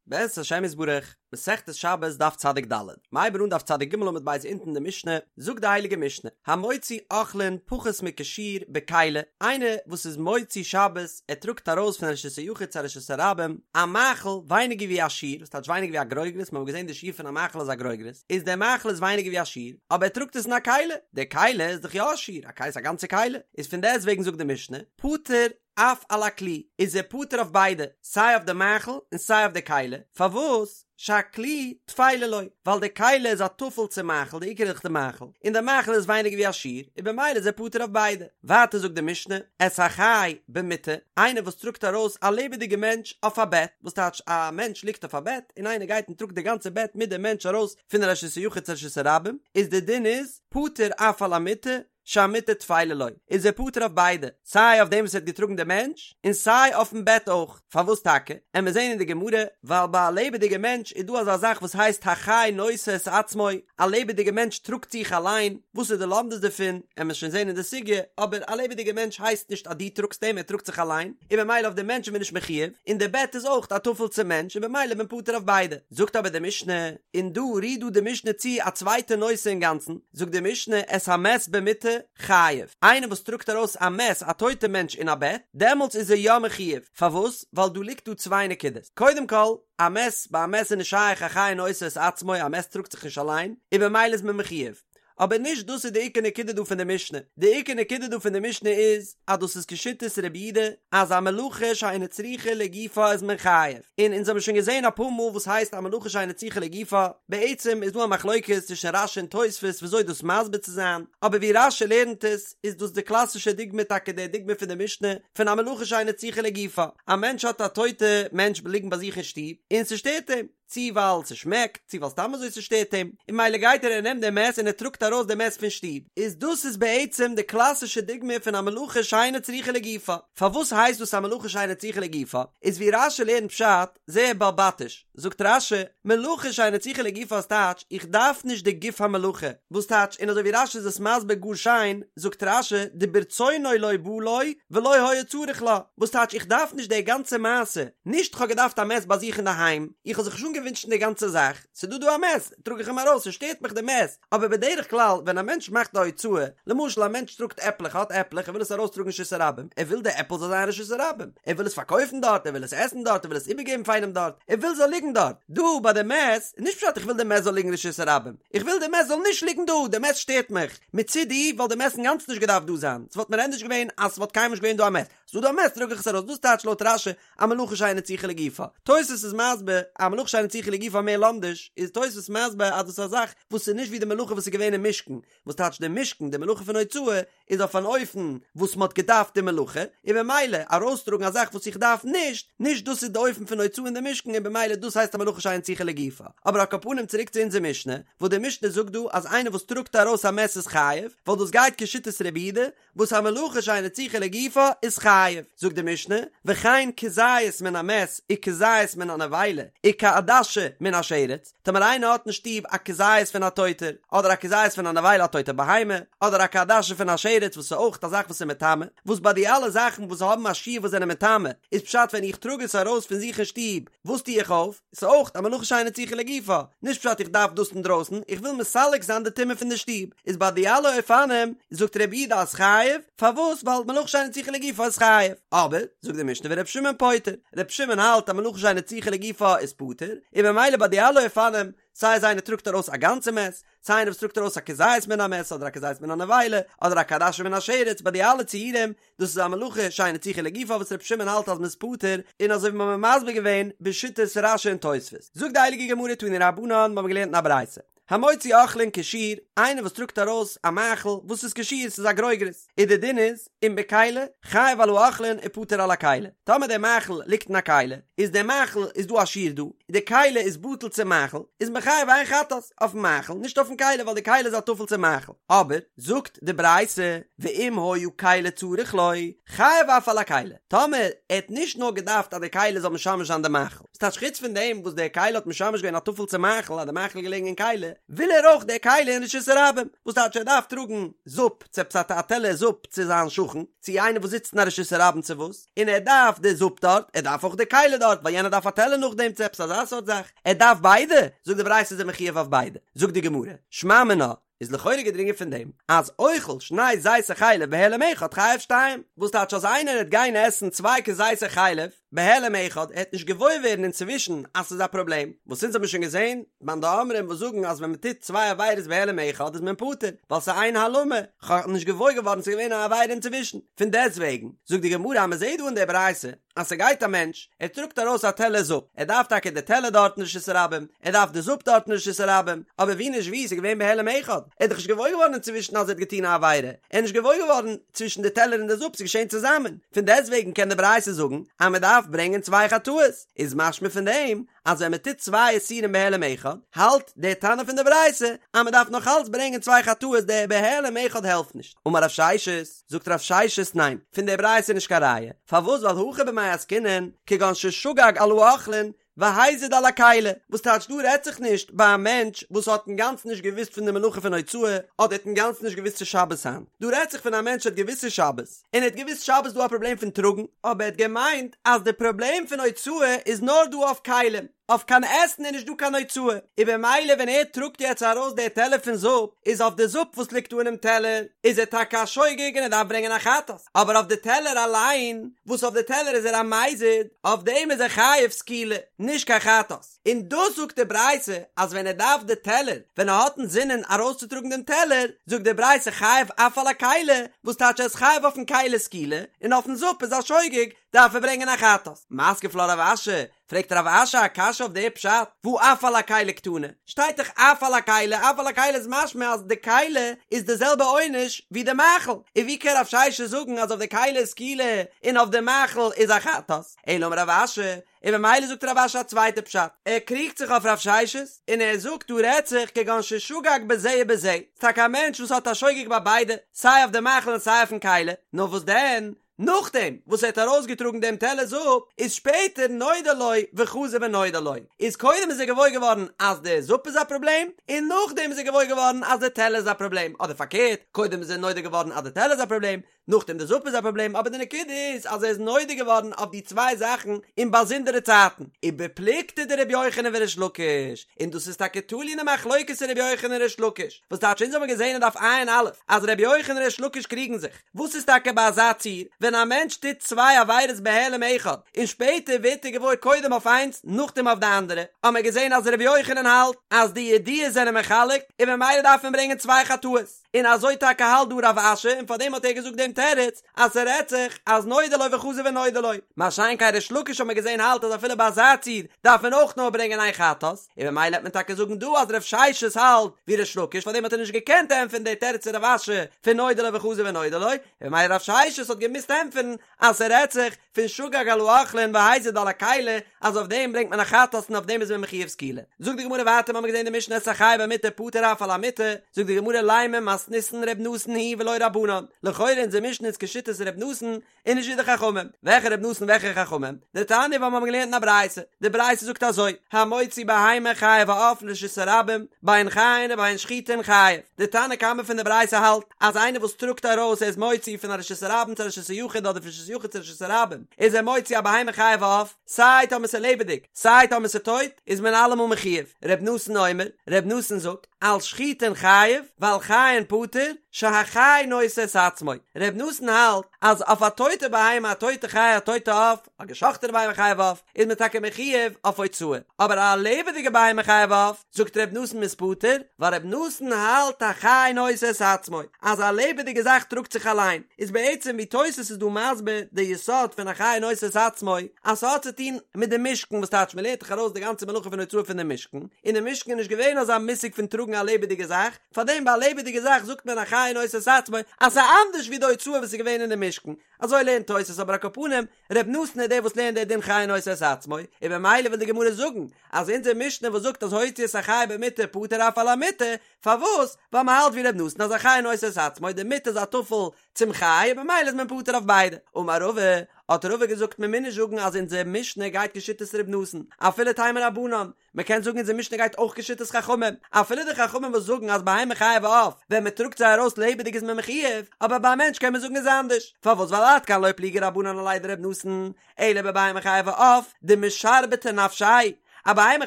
בעזרת השם יתברך, מסכת שבת דף צדיק ד', מ'הייבן אן דף צדיק ג' עמוד ב' אונטן די משנה, זאגט די הייליגע משנה, המוציא אוכלין פחות מכשיעור בכלי, איינער וואס איז מוציא שבת, ער טראגט ארויס פון רשות היחיד צו א רשות הרבים, א מאכל ווייניגער ווי א שיעור, וואס טייטש ווייניגער ווי א גרוגרת, מיר האבן געזען די שיעור פון א מאכל איז א גרוגרת, איז דער מאכל איז ווייניגער ווי א שיעור, אבער ער טראגט עס אין א כלי, די כלי איז דאך יא א שיעור, א כלי איז א גאנצע כלי, איז פון דעסט וועגן זאגט די משנה, פטור אף על הכלי, איז ער פטור אויף ביידע, סיי אויף די מאכל און סיי אויף די כלי, פארוואס? שהכלי טפלה לו, ווייל די כלי איז א טפל צום מאכל, די עיקר איז דאך די מאכל, און די מאכל איז ווייניגער ווי א שיעור, און במילא איז ער פטור אויף ביידע. ווייטער זאגט די משנה, את החי במיטה, איינער וואס טראגט ארויס א לעבעדיגע מענטש אויף א בעט, וואס טייטש א מענטש ליגט אויף א בעט, און איינער גייט און טראגט די גאנצע בעט מיט די מענטש ארויס פון רשות היחיד צו רשות הרבים, איז די דין איז, פטור אף על המיטה, שהמיטה טפלה לו, איז ער פטור אויף ביידע, סיי אויף דעם וואס ער האט געטראגן די מענטש, און סיי אויפן בעט אויך. פארוואס טאקע? עמיר זעהן אין די גמרא, ווייל ביי א לעבעדיגע מענטש איז דא אזא זאך וואס הייסט החי נושא את עצמו, א לעבעדיגע מענטש טראגט זיך אליין, וואס איז די לומדות דערפון, עמיר שוין זעהן אין די סוגיא, אבער א לעבעדיגע מענטש הייסט נישט אז דו טראגסט אים, ער טראגט זיך אליין, און במילא אויף די מענטש איז מען נישט מחויב, און די בעט איז אויך א טפל צום מענטש און במילא איז מען פטור אויף ביידע. זאגט אבער די משנה, און דא רירט דא די משנה צו א צווייטע נושא אינגאנצן, זאגט די משנה את המת במיטה חייב, איינער וואס טראגט ארויס א מת א טויטע מענטש אין א בעט, דעמאלטס איז ער יא מחויב, פארוואס? ווייל דא ליגט דא צוויי נקודות, קודם כל, א מת, ביי א מת איז נישט שייך החי נושא את עצמו, א מת טראגט זיך נישט אליין, און במילא איז מען מחויב. אבער נישט דאס איז די עיקר נקודה דא פון די משנה, די עיקר נקודה דא פון די משנה איז אז דאס איז כשיטת רבי יהודה אז א מלאכה שאינה צריכה לגופה איז מען חייב, און אונז האבן שוין געזען אפאר מאל וואס הייסט א מלאכה שאינה צריכה לגופה, בעצם איז דא א מחלוקת צווישן רש"י און תוספות וויאזוי דאס מסביר צו זיין, אבער ווי רש"י לערנט עס איז דאס די קלאסישע דוגמא טאקע די דוגמא פון די משנה פון א מלאכה שאינה צריכה לגופה, א מענטש האט א טויטע מענטש ליגן ביי זיך אין שטוב און ס'שטערט אים, צי ווייל ס'שמעקט, צי ווייל סתם אזוי ס'שטערט אים, און ממילא גייט ער און נעמט די מת און ער טראגט ארויס די מת פון שטוב. איז דאס איז בעצם די קלאסישע דוגמא פון א מלאכה שאינה צריכה לגופה. פארוואס הייסט דאס א מלאכה שאינה צריכה לגופה? איז ווי רש"י לערנט פשט, זייער בעלבתיש, זאגט רש"י, מלאכה שאינה צריכה לגופה איז טייטש, איך דארף נישט די גוף המלאכה, וואס טייטש, און אזוי ווי רש"י איז עס מסביר גאר שיין, זאגט רש"י, דברצונו לא בא לו, ולא היה צריך לה, וואס טייטש איך דארף נישט די גאנצע מעשה, נישט כ'האב געדארפט א מת ביי זיך אינדערהיים, איך האב זיך נישט אנגעווינטשן די גאנצע זאך, ס'דא דא א מת, טראג איך אים ארויס, ס'שטערט מיך די מת, אבער בדרך כלל ווען א מענטש מאכט א הוצאה, למשל א מענטש טראגט עפלעך, ער האט עפלעך, ער וויל עס ארויסטראגן רשות הרבים, ער וויל די עפל זאל זיין רשות הרבים, ער וויל עס פארקויפן דארט, ער וויל עס עסן דארט, ער וויל עס איבערגעבן פאר איינעם דארט, ער וויל ס'זאל ליגן דארט, דא ביי די מת, איז נישט פשט איך וויל די מת זאל ליגן רשות הרבים, איך וויל די מת זאל נישט ליגן דא, די מת שטערט מיך, מצידי וואלט די מת אינגאנצן נישט געדארפט דא זיין, ס'וואלט מיר ענדערש געווען אז ס'וואלט קיינמאל נישט געווען דא א מת, ס'דא דא א מת טראג איך עס ארויס, דאס טייטש לויט רש"י א מלאכה שאינה צריכה לגופה. תוס' איז מסביר א מלאכה שאינה צריכה לגופה מער לומדיש, איז תוס' מסביר אז דאס איז א זאך וואס איז נישט ווי די מלאכה וואס איז געווען אין משכן, וואס טייטש די משכן, די מלאכה פון הוצאה איז אויף אן אופן וואס מ'האט געדארפט די מלאכה, און במילא ארויסטראגן א זאך וואס איך דארף נישט, נישט דאס איז די אופן פון הוצאה אין די משכן און במילא דאס הייסט א מלאכה שאינה צריכה לגופה. אבער על כל פנים צוריק צו אונזער משנה, וואס די משנה זאגט דא אז איינער וואס טראגט ארויס א מת איז חייב, ווייל דאס גייט כשיטת רבי יהודה, וואס א מלאכה שאינה צריכה לגופה איז חייב, זאגט די משנה, וכן כזית מן המת וכזית מן הנבילה וכעדשה מן השרץ, טאמער איינער האט אין שטוב א כזית פון א טויטער, אדער א כזית פון א נבילה א טויטע בהמה, אדער א כעדשה פון א שרץ וואס איז אויך א זאך וואס איז מטמא, וואס ביי די אלע זאכן וואס האבן א שיעור וואס זענען מטמא, איז פשט ווען איך טראג עס ארויס פון זיך אין שטוב, וואס טו איך אויף? ס'איז אויך א מלאכה שאינה צריכה לגופה, נישט פשט איך דארף דאס אינדרויסן, איך וויל מסלק זיין די טומאה פון די שטוב, איז ביי די אלע אופנים זאגט רבי יהודה אז חייב, פארוואס ווייל מלאכה שאינה צריכה לגופה איז חייב, אבער זאגט די משנה ור' שמעון פוטר, ר' שמעון האלט אז מלאכה שאינה צריכה לגופה איז פטור, און ממילא ביי די אלע אופנים, סיי אז איינער טראגט ארויס א גאנצע מת, סיי איינער וואס טראגט ארויס א כזית מן המת אדער א כזית מן הנבילה, אדער א כעדשה מן השרץ, ביי די אלע ציורים, דאס איז א מלאכה שאינה צריכה לגופה וואס רבי שמעון האלט אז מ'איז פטור, און אזוי ווי מ'האמיר מסביר געווען בשיטת רש"י און תוספות. זאגט די הייליגע גמרא תנו רבנן, מ'האמיר געלערנט אין א ברייתא, המוציא אוכלין כשיעור, איינער וואס טראגט ארויס א מאכל וואס איז כשיעור, ס'איז א גרוגרת, און די דין איז, אם בכלי, חייב על האוכלין ופטור על הכלי, טאמער דער מאכל ליגט אין א כלי, איז דער מאכל איז דא א שיעור דא, די כלי איז בטל צום מאכל, איז מען חייב איין חטאת אויפן מאכל, נישט אויפן כלי ווייל די כלי איז א טפל צום מאכל, אבער, זאגט די ברייתא, ואם היה כלי צריך לו, חייב אף על הכלי, טאמער ער האט נישט נאר געדארפט אז די כלי זאל משמש זיין די מאכל, ס'טייטש חוץ פון דעם וואס די כלי האט משמש געווען א טפל צום מאכל אז די מאכל איז געלעגן אין כלי, וויל ער אויך די כלי אין רשות הרבים, וואס טייטש ער דארף טראגן זופ צו עפעס א טעלער זופ צו זיין שכן, צו איינער וואס זיצט אין א רשות הרבים צו וואס, און ער דארף די זופ דארט, ער דארף אויך די כלי דארט, ווייל יענער דארף א טעלער נאכדעם צו עפעס אזא סארט זאך, ער דארף ביידע, זאגט די ברייתא איז ער מחויב אויף ביידע, זאגט די גמרא, שמע מינה, איז לכאורה געדרינגען פון דעם אז אוכל שני כזיתי חלב בהעלם אחד חייב שתיים, וואס טייטש אז איינער העט גיין עסן צוויי כזיתי חלב בהעלם אחד ער העט נישט געוואויר ווערן אינצווישן אז ס'איז א פראבלעם, וואס אונז האבן שוין געזען מאן דאמרים וואס זאגן אז ווען מ'טוט צוויי עבירות בהעלם אחד איז מען פטור ווייל ס'איז איין העלמה, כ'האב נישט געוואויר געווארן ס'איז געווען א עבירה אינצווישן, פון דעסטוועגן זאגט די גמרא אז מ'זעט דא אין די ברייתא אז ס'גייט א מענטש, ער טראגט ארויס א טעלער זופ, ער דארף טאקע די טעלער דארט אין רשות הרבים, ער דארף די זופ דארט אין רשות הרבים, אבער ווי נישט ווי, ס'איז געווען בהעלם אחד, ער איז דאך נישט געוואויר געווארן אינצווישן אז ער האט געטון א עבירה, ער איז נישט געוואויר געווארן צווישן די טעלער און די זופ, ס'איז געשען צוזאמען, פון דעסטוועגן קען די ברייתא זאגן אז מען דארף ברענגען צוויי חטאות, איז משמע פון דעם אז ווען מען טוט צוויי איסורים בהעלם אחד, האלט דער תנא פון די ברייתא אז מען דארף נאך אלץ ברענגען צוויי חטאות, דער בהעלם אחד העלפט נישט. אמר רב ששת, זאגט רב ששת ניין, פון דער ברייתא איז נישט קיין ראיה, פארוואס ווייל הכא במאי עסקינן, כגון ששגג על האוכלין והזיד על הכלי, וואס טייטש דא רעדט זיך נישט ביי א מענטש וואס האט אינגאנצן נישט געוואוסט פון די מלאכה פון הוצאה, אדער האט אינגאנצן נישט געוואוסט ס'איז שבת היינט, דא רעדט זיך פון א מענטש האט געוואוסט ס'איז שבת, און ער האט געוואוסט שבת איז דא א פראבלעם פון טראגן, אבער ער האט געמיינט אז די פראבלעם פון הוצאה איז נאר דא אויף כלים, אויף קיין עסן איז נישט דא קיין הוצאה, און במילא ווען ער טראגט יעצט ארויס די טעלער פון זופ, איז אויף די זופ וואס ליגט דא אינעם טעלער, איז ער טאקע א שוגג און ער דארף ברענגען א חטאת, אבער אויף די טעלער אליין, וואס אויף די טעלער איז ער א מזיד, אויף דעם איז ער חייב סקילה, נישט קיין חטאת. און דאס זאגט די ברייתא אז ווען ער דארף די טעלער, ווען ער האט אינזינען ארויסצוטראגן דעם טעלער, זאגט די ברייתא חייב אף על הכלי, וואס טייטש ער איז חייב אויפן כלי סקילה, און אויפן זופ איז א שוגג, דארף ער ברענגען א חטאת. מתקיף לה רב אשי, פרעגט רב אשי א קשיא אויף די פשט, והא אף על הכלי קתני, שטייט דאך אף על הכלי, אף על הכלי איז משמע אז די כלי איז די זעלבע עונש ווי די מאכל, און ווי קען רב ששת זאגן אז אויף די כלי איז סקילה און אויף די מאכל איז א חטאת? אלא אמר רב אשי, און ממילא זאגט רב אשי א צווייטע פשט, ער קריגט זיך אויף רב ששת, און ער זאגט דא רעדט זיך כגון ששגג בזה ובזה, ס'טאקע א מענטש וואס האט א שוגג ביי ביידע, סיי אויף די מאכל און סיי אויפן כלי, נאר וואס דען, נאכדעם וואס ער האט ארויסגעטראגן דעם טעלער זופ, איז שפעטער נודע לו וחזר ונודע לו, איז קודם איז ער געוואויר געווארן אז די זופ איז א פראבלעם, און נאכדעם איז ער געוואויר געווארן אז די טעלער איז א פראבלעם, אדער פארקערט, קודם איז ער נודע געווארן אז די טעלער איז א פראבלעם, נאכדעם די זופ איז א פראבלעם, אבער די נקודה איז אז ער איז נודע געווארן אויף די צוויי זאכן אין באזונדערע צייטן, ובפלוגתא דרבי יוחנן וריש לקיש, און דאס איז טאקע תלוי אין די מחלוקת פון רבי יוחנן און ריש לקיש, וואס טייטש אונז האבן געזען אין דף ע"א אז רבי יוחנן און ריש לקיש קריגן זיך, וואס איז טאקע ביי אזא ציור ווען א מענטש טוט צוויי עבירות בהעלם אחד און שפעטער ווערט ער געוואויר קודם אויף איינס נאכדעם אויף די אנדערע, האבן מיר געזען אז רבי יוחנן האלט אז די ידיעות זענען מחלק און ממילא דארף מען ברענגען צוויי חטאות. און אזוי טאקע האלט דא רב אשי און פארדעם האט ער געזאגט דעם תירוץ אז ס'רעדט זיך אז נודע לו וחזר ונודע לו, מה שאין כן ריש לקיש האט מען געזען האלט אז אפילו ביי אזא ציור דארף מען אויך נאר ברענגען איין חטאת, און ממילא העט מען טאקע זאגן דא אז רב ששת האלט ווי ריש לקיש פארדעם האט ער נישט געקענט ענטפערן די תירוץ פון רב אשי פון נודע לו וחזר ונודע לו, און ממילא רב ששת האט געמוזט ענטפערן אז ס'רעדט זיך פון שגג על האוכלין והזיד על הכלי, אז אויף דעם ברענגט מען א חטאת און אויף דעם איז מען מחויב סקילה. זאגט די גמרא ווייטער מ'האמיר געזען די משנה את החי במיטה פטור אף על המיטה, זאגט די גמרא לימא מתניתין ר' נתן היא ולא רבנן, לכאורה אונזער משנה איז כשיטת ר' נתן און נישט ווי די חכמים, וועלכע ר' נתן וועלכע חכמים? דתניא ווייל מ'האמיר געלערנט אין א ברייתא, די ברייתא זאגט אזוי, המוציא בהמה חיה ועוף לרשות הרבים, בין חיין ובין שחוטין חייב, די תנא קמא פון די ברייתא האלט אז איינער וואס טראגט ארויס ער איז מוציא פון א רשות הרבים צו א רשות היחיד אדער פון רשות היחיד צו רשות הרבים איז ער מוציא א בהמה חיה ועוף סיי טאמער ס'איז לעבעדיג סיי טאמער ס'איז טויט איז מען אלעמאל מחויב ר' נתן אומר ר' נתן זאגט על שחוטין חייב ועל חיין פטור שהחי נושא את עצמו ר' נתן האלט אז אויף א טויטע בהמה א טויטע חיה א טויטע עוף א געשאכטענע בהמה חיה ועוף איז מען טאקע מחויב אויף הוצאה, אבער א לעבעדיגע בהמה חיה ועוף, זאגט ר' נתן מ'איז פטור, ווייל ר' נתן האלט החי נושא את עצמו, אז א לעבעדיגע זאך טראגט זיך אליין, איז בעצם ווי תוס' איז דא מסביר די יסוד פון החי נושא את עצמו, אז ס'האט צו טון מיט די משכן וואס טייטש מ'לערנט דאך ארויס די גאנצע מלאכה פון הוצאה פון די משכן, אין די משכן איז נישט געווען אזא מושג פון טראגן א לעבעדיגע זאך, פארדעם ביי א לעבעדיגע זאך זאגט מען החי נושא את עצמו אז ס'איז אנדערש ווי די הוצאה וואס איז געווען אין די משכן, אזוי לערנט תוס' אבער על כל פנים ר' נתן איז דער וואס לערנט דער דין חי נושא את עצמו, און במילא וויל די גמרא זאגן אז אונזער משנה וואס זאגט אז הוציא את החי במיטה פטור אף על המיטה, פארוואס? ווייל מען האלט ווי ר' נתן אז החי נושא את עצמו, די מיטה איז א טפל צום חי און במילא איז מען פטור אויף ביידע. אמר רבא, האט רבא געזאגט מען מוז נישט זאגן אז אונזער משנה גייט כשיטת ר' נתן, אפילו תימא רבנן, מען קען זאגן אונזער משנה גייט אויך כשיטת חכמים, אפילו די חכמים וואס זאגן אז בהמה חיה ועוף ווען מען טראגט זיי ארויס לעבעדיג איז מען מחויב, אבער ביי א מענטש קען מען זאגן איז אנדערש, פארוואס ווייל עד כאן לא פליגי רבנן עליה דר' נתן, אלא בבהמה חיה ועוף דמשרבטי נפשיה, א בהמה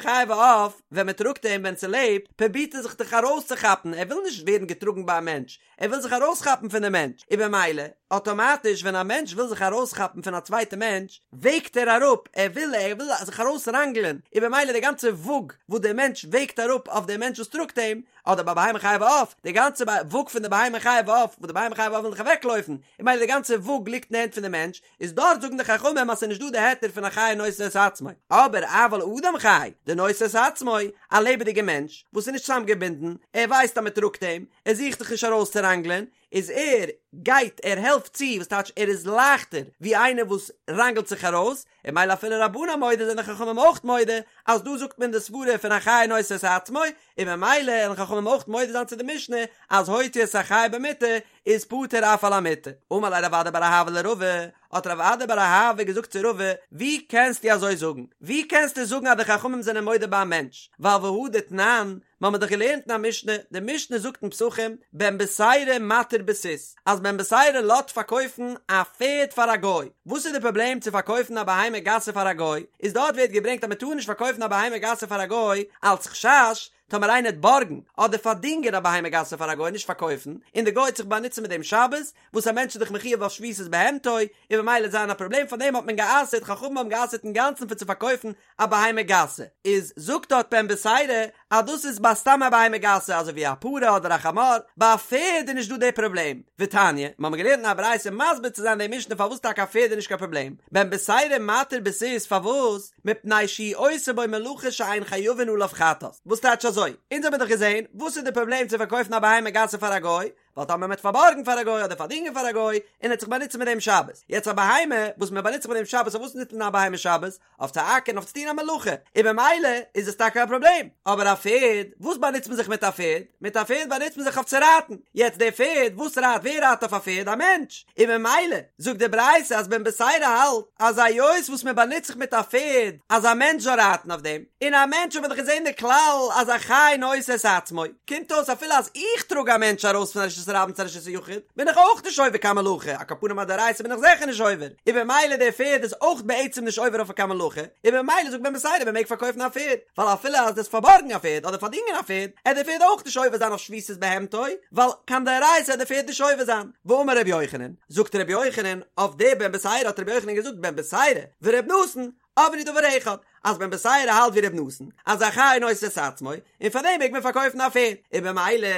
חיה ועוף ווען מען טראגט אים ווען ס'לעבט פרובירט ער זיך דאך ארויסצוכאפן ער וויל נישט ווערן געטראגן ביי א מענטש, ער וויל זיך ארויסכאפן פון די מענטש, און במילא, אטאמאטיש ווען א מענטש וויל זיך ארויסכאפן פון א צווייטע מענטש, וועגט ער אראפ, ער וויל ער וויל זיך ארויסראנגלען, און במילא די גאנצע וואג וואס דער מענטש וועגט אראפ אויף דעם מענטש וואס טראגט אים, אדער ביי בהמה חיה ועוף, די גאנצע וואג פון די בהמה חיה ועוף, וואס די בהמה חיה ועוף וויל זיך אוועקלויפן, און במילא די גאנצע וואג ליגט אין די הענט פון די מענטש, איז דארט זאגן די חכמים אז ס'איז נישט דא די היתר פון א חי נושא את עצמו, אבער אבל אדם חי דנושא את עצמו, א לעבעדיגע מענטש וואס איז נישט צוזאמגעבינדן, ער ווייסט אז מ'טראגט אים, ער זוכט זיך נישט ארויסצוראנגלען, איז ער גייט ער העלפט צו, וואס טייטש ער איז לייכטער ווי איינער וואס ראנגלט זיך ארויס, און ממילא אפילו רבנן מודה זענען די חכמים אויך מודה אז דא זאגט מען די סברה פון א חי נושא את עצמו, און ממילא וועלן חכמים אויך מודה זיין צו די משנה אז הוציא את החי במיטה איז פטור אף על המיטה. אמר ליה רב אדא בר אהבה לרבא, האט רב אדא בר אהבה געזאגט צו רבא, ווי קענסטו אזוי זאגן? ווי קענסטו זאגן אז די חכמים זענען מודה ביי א מענטש? ווייל והא דתנן, מיר האבן דאך געלערנט אין א משנה, די משנה זאגט אין פסחים, בן בתירא מתיר בסוס, אז בן בתירא לאזט פארקויפן א פערד פאר א גוי. וואס איז די פראבלעם צו פארקויפן א בהמה גסה פאר א גוי? איז דארט ווערט געברענגט אז מען טאר נישט פארקויפן א בהמה גסה פאר א גוי אלץ חשש טאמער איינער וועט בארגן אדער פארדינגען א בהמה גסה פאר א גוי נישט פארקויפן, און די גוי וועט זיך באנוצן מיט דעם שבת, וואס א מענטש איז דאך מחויב אויף שביתת בהמתו, און ממילא וועט זיין א פראבלעם פאר דעם האט מען גע'אסר'ט, חכמים האבן גע'אסר'ט אינגאנצן פון צו פארקויפן א בהמה גסה, איז זאגט דארט בן בתירא אז דאס איז ביי סתם א בהמה גסה אזוי ווי א פרה אדער א חמור, ביי א פערד איז נישט דא די פראבלעם, ותניא, מיר האבן געלערנט אין א ברייתא מסביר צו זיין די משנה פארוואס טאקע א פערד איז נישט קיין פראבלעם, בן בתירא מתיר בסוס פארוואס? מפני שהוא עושה בו מלאכה שאין חייבין עליו חטאת, וואס טייטש אזוי? אונז האבן דאך געזען, וואס איז די פראבלעם צו פארקויפן א בהמה גסה פאר א גוי? ווייל טאמער מ'וועט פארבארגן פאר א גוי אדער פארדינגען פאר א גוי, און ער וועט זיך באנוצן מיט דעם שבת. יעצט א בהמה וואס מען באנוצט זיך מיט דעם שבת, אויף וואס נוצט מען א בהמה שבת? אויף צו אקערן, אויף צו טון א מלאכה, און במילא איז עס טאקע א פראבלעם. אבער א פערד, וואס באנוצט מען זיך מיט א פערד? מיט א פערד באנוצט מען זיך אויף צו רייטן. יעצט דער פערד, וואס רייט? ווער רייט אויף א פערד? א מענטש. און במילא זאגט די ברייתא אז בן בתירא האלט אז היות וואס מען באנוצט זיך מיט א פערד אז א מענטש זאל רייטן אויף דעם, און א מענטש האט מען דאך געזען די כלל אז א חי נושא את עצמו, קומט אויס אפילו אז איך טראג א מענטש ארויס פון א רשות הרבים צו א רשות היחיד בין איך אויך נישט עובר קיין מלאכה, על כל פנים א דאורייתא בין איך זיכער נישט עובר, און במילא דער פערד איז אויך בעצם נישט עובר אויף קיין מלאכה, און במילא זאגט בן בתירא מען מעג פארקויפן א פערד, ווייל אפילו אז דו'סט פארבארגן א פערד אדער פארדינגען א פערד, עט דער פערד אויך נישט עובר זיין אויף שביתת בהמתו, ווייל קיין דאורייתא עט דער פערד נישט עובר זיין. ואמר רבי יוחנן, זאגט רבי יוחנן, אויף די בן בתירא האט רבי יוחנן געזאגט בן בתירא ור' נתן, אמרו דבר אחד, אז בן בתירא האלט ווי ר' נתן, אז א חי נושא את עצמו, און פאר דעם מעג מען פארקויפן א פערד, און במילא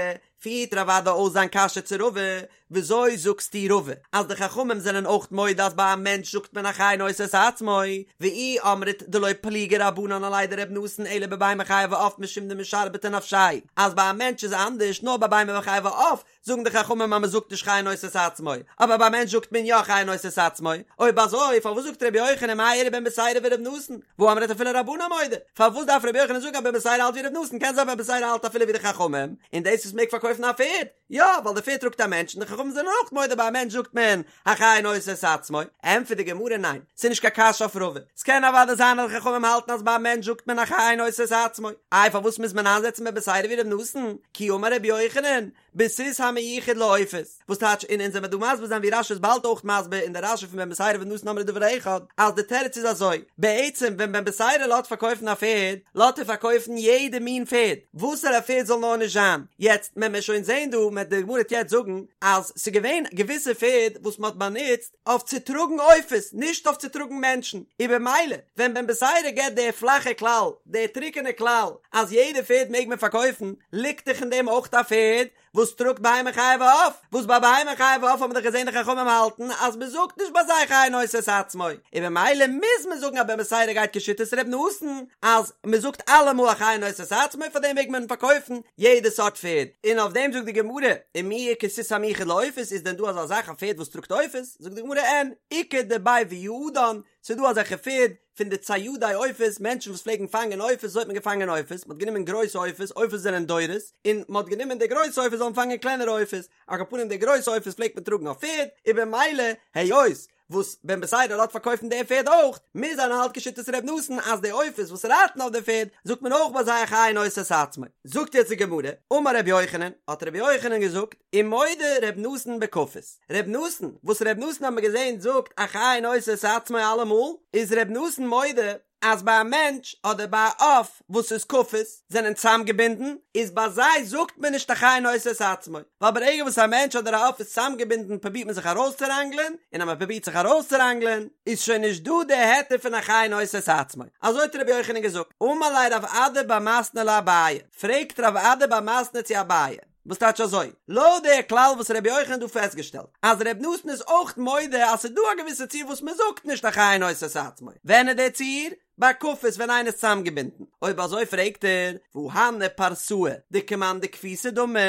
פירט רב אדא אויס זיין קשיא צו רבא, וויאזוי זאגסטו רבא אז די חכמים זענען אויך מודה אז ביי א מענטש זאגט מען א חי נושא את עצמו, ואי אמרת דלא פליגי רבנן עליה דר' נתן אלא בבהמה חיה ועוף משום דמשרבטי נפשיה, אז ביי א מענטש איז אנדערש נאר ביי בהמה חיה ועוף זאגן די חכמים אז מען זאגט נישט חי נושא את עצמו, אבער ביי א מענטש זאגט מען יא חי נושא את עצמו, אויב אזוי פארוואס זאגט רבי יוחנן מאי איריא בן בתירא ור' נתן, והא אמרת אפילו רבנן מודו, פארוואס דארף רבי יוחנן זאגן אז בן בתירא האלט ווי ר' נתן, קען זיין בן בתירא האלט אפילו ווי די חכמים, און דאס וואס מעג פארקויפן א פערד, יא ווייל די פערד טראגט א מענטש און די חכמים זענען אויך מודה ביי א מענטש זאגט מען החי נושא את עצמו, ענטפערט די גמרא ניין, ס'איז נישט קיין קשיא אויף רבא, ס'קען אוודאי זיין אז די חכמים האלטן אז ביי א מענטש זאגט מען החי נושא את עצמו, איי פארוואס מוז מען איינזעצן בן בתירא ווי ר' נתן, כי אמר רבי יוחנן, בסוס המיוחד לעופות, וואס טייטש און אונז וועמיר דא מסביר זיין ווי רש"י איז באלד אויך מסביר אין די רש"י פון בן בתירא ור' נתן אמרו דבר אחד, אז די תירוץ איז אזוי, בעצם ווען בן בתירא לאזט פארקויפן א פערד, לאזט ער פארקויפן יעדע מין פערד, וואסערע פערד זאל נאר נישט זיין, יעצט מען וועט שוין זען דא, מען די גמרא וועט יעצט זאגן, אז ס'איז געווען געוויסע פערד וואס מען האט באנוצט אויף צו טראגן עופות, נישט אויף צו טראגן מענטשן, און במילא ווען בן בתירא געבט די פלאכע כלל, די טרוקענע כלל, אז יעדע פערד מעג מען פארקויפן, ליגט דאך אין דעם אויך א פערד וואס טראגט בהמה חיה ועוף, וואס ביי בהמה חיה ועוף האבן מיר דאך געזען די חכמים האלטן אז מען זאגט נישט ביי זיי חי נושא את עצמו, און במילא מוז מען זאגן אז בן בתירא גייט כשיטת ר' נתן אז מען זאגט אלעמאל החי נושא את עצמו פאר דעם מעג מען פארקויפן יעדע סארט פערד, און אויף דעם זאגט די גמרא, ומי איכא סוס המיוחד לעופות איז דען דא אזא זאך א פערד וואס טראגט עופות? זאגט די גמרא אין, איכא דבי ויעדן. ס'איז דא אזעלכע פערד פון די ציידי עופות, מענטשן וואס פלעגן פאנגען עופות, אזוי האט מען געפאנגען עופות, מ'האט גענומען גרויסע עופות, עופות זענען דורס, און מ'האט גענומען די גרויסע עופות זאלן פאנגען קלענערע עופות, על כל פנים די גרויסע עופות פלעגט מען טראגן אויף פערד, און במילא היות וואס בן בתירא לאזט פארקויפן די פערד אויך, מוז זיין ער האלט כשיטת ר' נתן אז די עופות וואס רייטן אויף די פערד זאגט מען אויך ביי זיי החי נושא את עצמו. זאגט יעצט די גמרא, אמר רבי יוחנן, האט רבי יוחנן געזאגט, ומודה ר' נתן בכפות, ר' נתן, וואס ר' נתן האט מען געזען זאגט החי נושא את עצמו אלעמאל, איז ר' נתן מודה אז ביי א מענטש אדער ביי א עוף וואס איז כפות זענען צאמגעבינדן, איז ביי זיי זאגט מען נישט החי נושא את עצמו, ווייל ברגע וואס א מענטש אדער א עוף איז צאמגעבינדן פרובירט מען זיך ארויסצוראנגלען, און אז מען פרובירט זיך ארויסצוראנגלען איז שוין נישט דא די היתר פון החי נושא את עצמו, אזוי האט רבי יוחנן געזאגט, אמר ליה רב אדא בר מתנה לאביי, פרעגט רב אדא בר מתנה צו אביי, וואס טייטש אזוי? לויט די כלל וואס רבי יוחנן האט דא פעסטגעשטעלט, אז רבי נתן איז אויך מודה אז ס'איז דא א געוויסע ציור וואס מ'זאגט נישט החי נושא את עצמו, ווען איז די ציור? ביי כפות ווען איינער איז צוזאמגעבינדן. אויב אזוי פרעגט ער, והא הני פרסאי דכמאן דכפיתי דמי,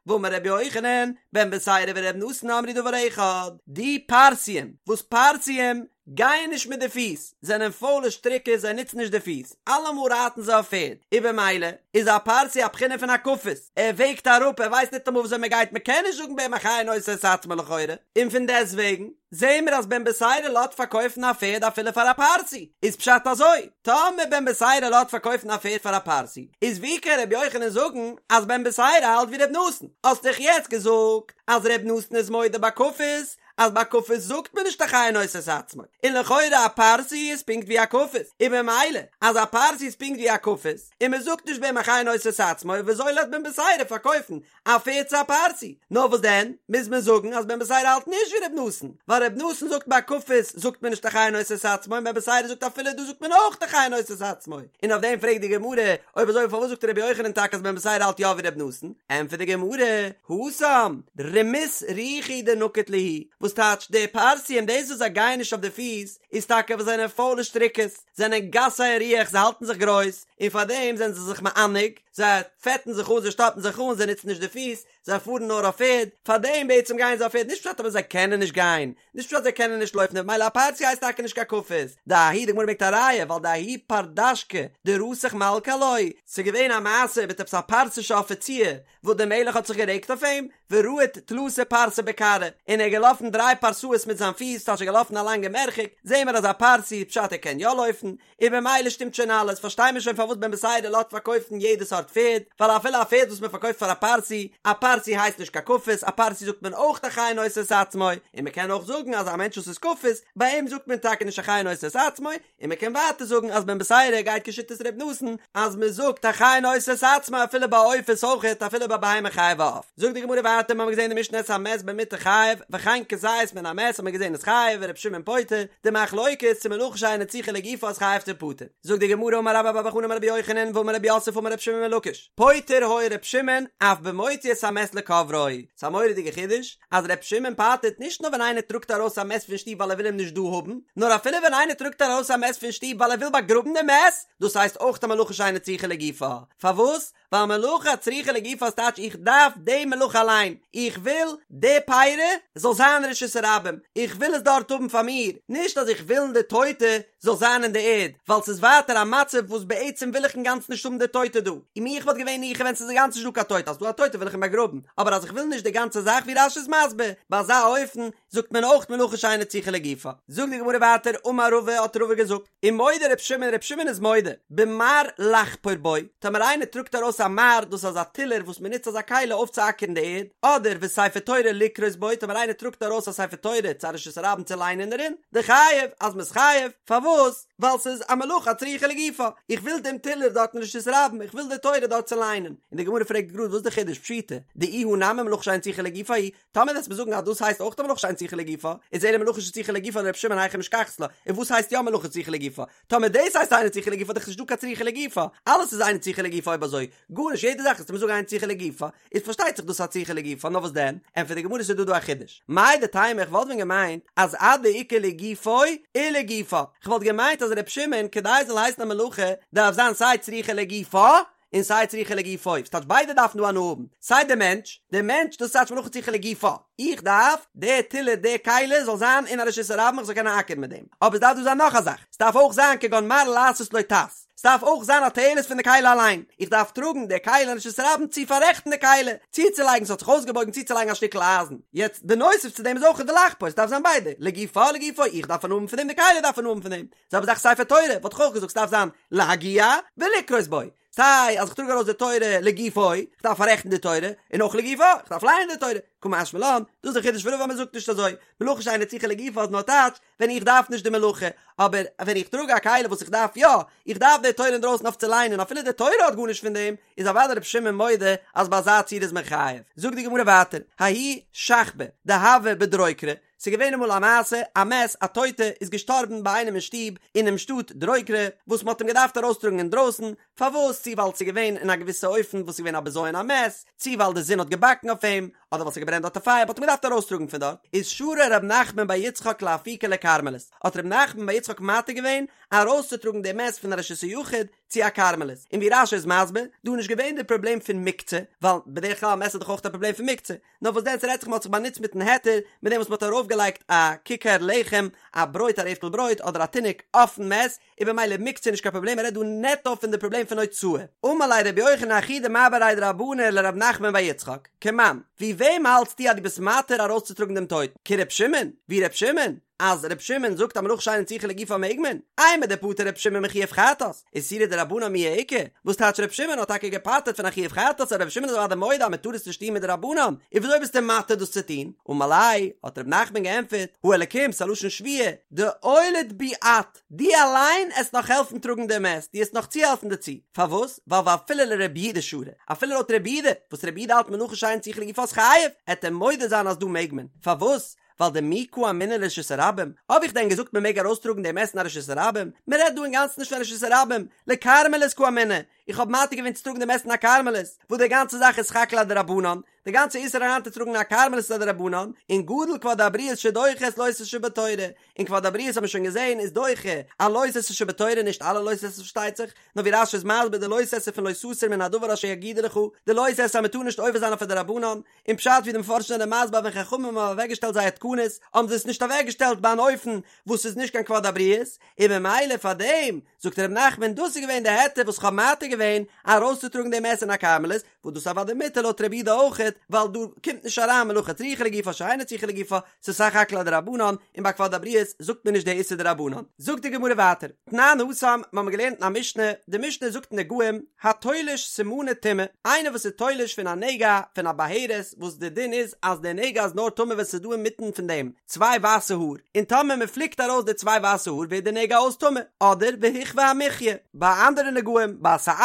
והאמר רבי יוחנן, בן בתירא ורבי נתן אמרו דבר אחד, די פרסיים, וואס פרסיים גייען נישט מיט די פיס, זענען פוילע שטריקעס זיי נוצן נישט די פיס, אלעמאל רייטן זיי אויף פערד, און במילא איז א פרסי א בחינה פון א כפות, ער וועגט אראפ ער ווייסט ניטאמאל וויאזוי מען גייט מען קען נישט זאגן ביי אים החי נושא את עצמו לכאורה, און פון דעסטוועגן זעהן מיר אז בן בתירא לאזט פארקויפן א פערד אפילו פאר א פרסי, איז פשט אזוי, טאמער בן בתירא לאזט פארקויפן א פערד פאר א פרסי, איז ווי קען ר' יוחנן זאגן אז בן בתירא האלט ווי ר' נתן, האסט דאך יעצט געזאגט אז ר' נתן איז מודה ביי כפות, אז ביי כפות זאגט מען נישט החי נושא את עצמו, און לכאורה א פרסי איז פונקט ווי א כפות, און במילא אז א פרסי איז פונקט ווי א כפות, און מען זאגט נישט ביי אים החי נושא את עצמו, וויאזוי לאזט בן בתירא פארקויפן א פערד צו א פרסי? נאר וואס דען, מוז מען זאגן אז בן בתירא האלט נישט ווי ר' נתן, ווייל ר' נתן זאגט ביי כפות זאגט מען נישט החי נושא את עצמו און בן בתירא זאגט אפילו דא זאגט מען אויך החי נושא את עצמו, און אויף דעם פרעגט די גמרא, אויב אזוי פארוואס זאגט רבי יוחנן טאקע אז בן בתירא האלט יא ווי ר' נתן? ענטפערט די גמרא, התם, רמות רוחא הוא דנקיט להו, וואס טייטש די פרסיים דאס וואס זיי גייען נישט אויף די פיס איז טאקע ווייל זיי זענען פוילע שטריקעס, זענען גסי הרוח זיי האלטן זיך גרויס, און פארדעם זענען זיי זיך מענג, זיי פעטן זיך אן זיי שטאפן זיך אן זיי נוצן נישט די פיס, זיי פארן נאר אויף פערד, פארדעם בעצם גייען זיי אויף פערד, נישט פשט אבער זיי קענען נישט גיין, נישט פשט זיי קענען נישט לויפן, ממילא א פרסי הייסט טאקע נישט קיין כפות, דההוא די גמרא ברענגט א ראיה ווייל דההוא פרדשכא דרתח מלכא עילויה, ס'איז געווען א מעשה מיט עפעס א פרסישע אפיציר וואס דער מלך האט זיך גערעגט אויף אים, ורהט תלתא פרסי בכרעיה, און ער איז געלאפן דריי פרסאות מיט זיין פיס, ס'טייטש ער איז געלאפן א לאנגע מרחק, זעהן מיר אז א פרסי פשט ער קען יא לויפן, און במילא שטימט שוין אלעס, פארשטיי מיר שוין פארוואס בן בתירא לאזט פארקויפן יעדע סארט פערד, ווייל אפילו א פערד וואס מען פארקויפט פאר א פרסי, א פרסי הייסט נישט קיין כפות, א פרסי זאגט מען אויך החי נושא את עצמו, און מען קען אויך זאגן אז א מענטש וואס איז כפות, ביי אים זאגט מען טאקע נישט החי נושא את עצמו, און מען קען ווייטער זאגן אז בן בתירא גייט כשיטת ר' נתן, אז מען זאגט החי נושא את עצמו אפילו ביי עופות אויכעט אפילו ביי בהמה חיה ועוף. זאגט די גמרא ווייטער, מיר האבן געזען אין די משנה את המת במטה חייב, וכן כזית מן המת האט מען געזען איז חייב, ור' שמעון פוטר, די מחלוקת צו מלאכה שאינה צריכה לגופה איז חייב צו פטור. זאגט די גמרא אמר רבה בר בר חנה אמר רבי יוחנן ואמר רב יוסף אמר רבי שמעון בן לקיש פוטר היה ר' שמעון אף במוציא את המת לקוברו ס'איז א מורא'דיגע חידוש אז ר' שמעון פטר'ט נישט נאר ווען איינער טראגט ארויס א מת פון שטוב ווייל ער וויל אים נישט דא האבן נאר אפילו ווען איינער טראגט ארויס א מת פון שטוב ווייל ער וויל באגראבן די מת דאס הייסט אויך א מלאכה שאינה צריכה לגופה פארוואס ווייל מלאכה הצריכה לגופה איז טייטש איך דארף די מלאכה אליין, איך וויל די פירי זאל זיין רשות הרבים, איך וויל עס דארט האבן פאר מיר, נישט אז איך וויל די טויטע זאל זיין אין די ערד, ווייל ס'איז ווייטער א מצב וואס בעצם וויל איך אינגאנצן נישט האבן די טויטע דא, און מיך וואלט געווען ניחא ווען ס'איז אינגאנצן נישט דא קיין טויטע, אז ס'דא א טויטע וויל איך אים באגראבן, אבער אז איך וויל נישט די גאנצע זאך ווי רש"י איז מסביר, ביי אזא אופן זאגט מען אויך מלאכה שאינה צריכה לגופה. זאגט די גמרא ווייטער, אמר רבא האט רבא געזאגט, ומודה ר' שמעון, ר' שמעון איז מודה, במר לחפור בו, טאמער איינער טראגט ארויס א מר, דאס איז אזא טילער וואס מען נוצט אזא כלי אויפצואקערן די ערד, אדער וספר תורה לקרות בו, טאמער איינער טראגט ארויס א ספר תורה צו א רשות הרבים צו ליינען דערין, דחייב, אז מען איז חייב, פארוואס? ווייל ס'איז א מלאכה הצריכה לגופה, איך וויל דעם טילער דארט אין רשות הרבים, איך וויל די תורה דארט צו ליינען. און די גמרא פרעגט גראד וואס איז די חידוש, פשיטא, דאיהו נמי מלאכה שאינה צריכה לגופה היא, טאמער וועסט מיר זאגן אז דאס הייסט אויך א מלאכה שאינה צריכה לגופה, איז אלא מלאכה שצריכה לגופה לר' שמעון היכי משכחת לה, און וואס הייסט יא מלאכה צריכה לגופה? טאמער דאס הייסט אינה צריכה לגופה איז דאך נישטא קיין צריכה לגופה, אלעס איז אינה צריכה לגופה אויב אזוי, גארנישט יעדע זאך וועסטו מיר זאגן אינה צריכה לגופה, איז פארשטייט זיך דאס א צריכה לגופה, נאר וואס דען? ענטפערט די גמרא ס'איז דא דא א חידוש, מהו דתימא איך וואלט ווען געמיינט אז עד דאיכא לגופו ולגופה, כ'וואלט געמיינט אז ר' שמעון כדי עס זאל הייסן א מלאכה דארף זיין סיי צריכה לגופה. און סיי צריכה לגופו, ס'טייטש ביידע דארפן דא הנאה האבן, סיי די מענטש, די מענטש דאס טייטש מלאכה צריכה לגופה, איך דארף די טילער די כלי זאל זיין אין א רשות הרבים איך זאל קענען אקערן מיט דעם, אבער ס'דארף דא זיין נאך א זאך, ס'דארף אויך זיין כגון מראה לעשות לו טס, ס'דארף אויך זיין א תועלת פון די כלי אליין, איך דארף טראגן די כלי אין רשות הרבים צו פאררעכטן די כלי, צוצולייגן ס'האט זיך אויסגעבויגן צוצולייגן א שטיקל אייזן, יעצט בנוסף צו דעם איז אויך ולחפור, ס'דארף זיין ביידע, לגופה לגופו, איך דארף הנאה האבן פון דעם די כלי דארף הנאה האבן פון דעם, זעלבע זאך ספר תורה, וואלט איך אויך געזאגט ס'דארף זיין להגיה ולקרות בו, סיי אז איך טראג ארויס די תורה לגופו, איך דארף פאררעכטן די תורה, און אויך לגופה, איך דארף לייענען די תורה, קא משמע לן, דאס איז די חידוש פון רבא אז מ'זאגט נישט אזוי, מלאכה שאינה צריכה לגופה איז נאר טייטש ווען איך דארף נישט די מלאכה, אבער ווען איך טראג א כלי וואס איך דארף יא, איך דארף די תורה אינדרויסן אויף צו ליינען אפילו די תורה האט גארנישט פון דעם, איז אוודאי רבי שמעון מודה אז ביי אזא ציור איז מען חייב. זאגט די גמרא ווייטער, ההוא שכבא דהוה בדרוקרא, ס'איז געווען אמאל א מעשה, א מת, א טויטע, איז געשטארבן ביי איינעם אין שטוב, אינעם שטאט דרוקרא, וואס מ'האט אים געדארפט ארויסטראגן אינדרויסן, פארוואס? צי ווייל ס'איז געווען אין א געוויסע אופן וואס איז געווען א בזיון המת, צי ווייל די זון האט געבאקן אויף אים, אדער ווייל ס'האט געברענט דארט א פייער, מ'האט אים געדארפט ארויסטראגן פון דארט, איז שרא ר' נחמן בר יצחק לאפוקיה לכרמלית, האט ר' נחמן בר יצחק מתיר געווען ארויסצוטראגן די מת פון א רשות היחיד צו א כרמלית, און ווי רש"י איז מסביר, דא איז נישט געווען די פראבלעם פון מוקצה, ווייל בדרך כלל מת איז דאך אויך א פראבלעם פון מוקצה, נאר וואס דען ס'רעדט זיך מ'האט זיך באנוצט מיטן היתר, מיט דעם וואס מ'האט ארויפגעלייגט א ככר לחם, א ברויט א רעפטל ברויט אדער א תינוק אויפן מת, איז במילא מוקצה נישט קיין פראבלעם מ'רעדט דא נעטא פון די פראבלעם פון הוצאה. אמר ליה רבי יוחנן אחי דמר בריה דרבנא לרב נחמן בר יצחק, כמאן, ווי וועם האלטסטו אז דו ביסט מתיר ארויסצוטראגן דעם טויטן? כר' שמעון? ווי ר' שמעון? אז ר' שמעון זאגט אז מלאכה שאינה צריכה לגופה מעג מען, אימר דפטר ר' שמעון מחיוב חטאת, איסורא דרבנן מיהא איכא, וואס טייטש ר' שמעון האט טאקע געפטר'ט פון א חיוב חטאת אבער ר' שמעון איז אוודאי מודה אז מען טאר עס נישט טון מדרבנן, און וויאזוי ביסטו מתיר דאס צו טון? אמר ליה, האט ר' נחמן געענטפערט, האלקים, ס'א לשון שבועה, דעוליד בי את, דו אליין עסט נאך העלפן טראגן דעם מת, דו עסט נאך צוהעלפן דערצו, פארוואס? ווייל ואפילו לרבי יהודה שרי, אפילו לויט רבי יהודה, וואס רבי יהודה האלט מלאכה שאינה צריכה לגופה איז חייב, עט ער מודה זיין אז דא מעג מען, פארוואס? ווייל דמי קאמינא לרשות הרבים, האב איך דען געזאגט מען מעג ארויסטראגן דעם מת אין א רשות הרבים? מען רעדט דא אינגאנצן נישט פון רשות הרבים, לכרמלית קאמינא, איך האב מתיר געווען צו טראגן דעם מת אין א כרמלית, וואס די גאנצע זאך איז סך הכל א דרבנן, די גאנצע איסור אריינצוטראגן אין א כרמלית איז א דרבנן, און גדול כבוד הבריות שדוחה את לא תעשה שבתורה, און כבוד הבריות האט מען שוין געזען איז דוחה א לא תעשה שבתורה, נישט אלע לא תעשה פארשטייט זיך, נאר ווי רש"י איז מסביר די לא תעשה פון לא תסור מן הדבר אשר יגידו לך, די לא תעשה אז מען טאר נישט עובר זיין אויף א דרבנן, און פשט ווי די מפרשים זענען מסביר ווען חכמים האבן אוועקגעשטעלט זייער תקנות האבן זיי עס נישט אוועקגעשטעלט ביי אן אופן וואס איז נישט קיין כבוד הבריות, און ממילא פאר דעם זאגט ר' נחמן דאס איז געווען די היתר וואס כ'האב מתיר געווען ארויסצוטראגן דעם מת אין א כרמלית, וואס דאס אוודאי מותר לויט רבי יהודה אויכעט, ווייל דא קומט נישט אריין מלאכה צריכה לגופה שאינה צריכה לגופה, ס'איז סך הכל א דרבנן, און ביי כבוד הבריות זאגט מען נישט די איסור דרבנן. זאגט די גמרא ווייטער, תנן התם, מ'האמיר געלערנט אין א משנה, די משנה זאגט אין נגעים, התולש סימני טומאה, איינער וואס איז תולש פון א נגע פון א בהרת, וואס די דין איז אז די נגע איז נאר טמא ווען ס'איז דא אינמיטן פון דעם צוויי ווייסע האר, און טאמער מ'פליקט ארויס די צוויי ווייסע האר ווערט די נגע אויס טמא, אדער והכוה המחיה, ביי אנדערע נגעים, ביי שאת,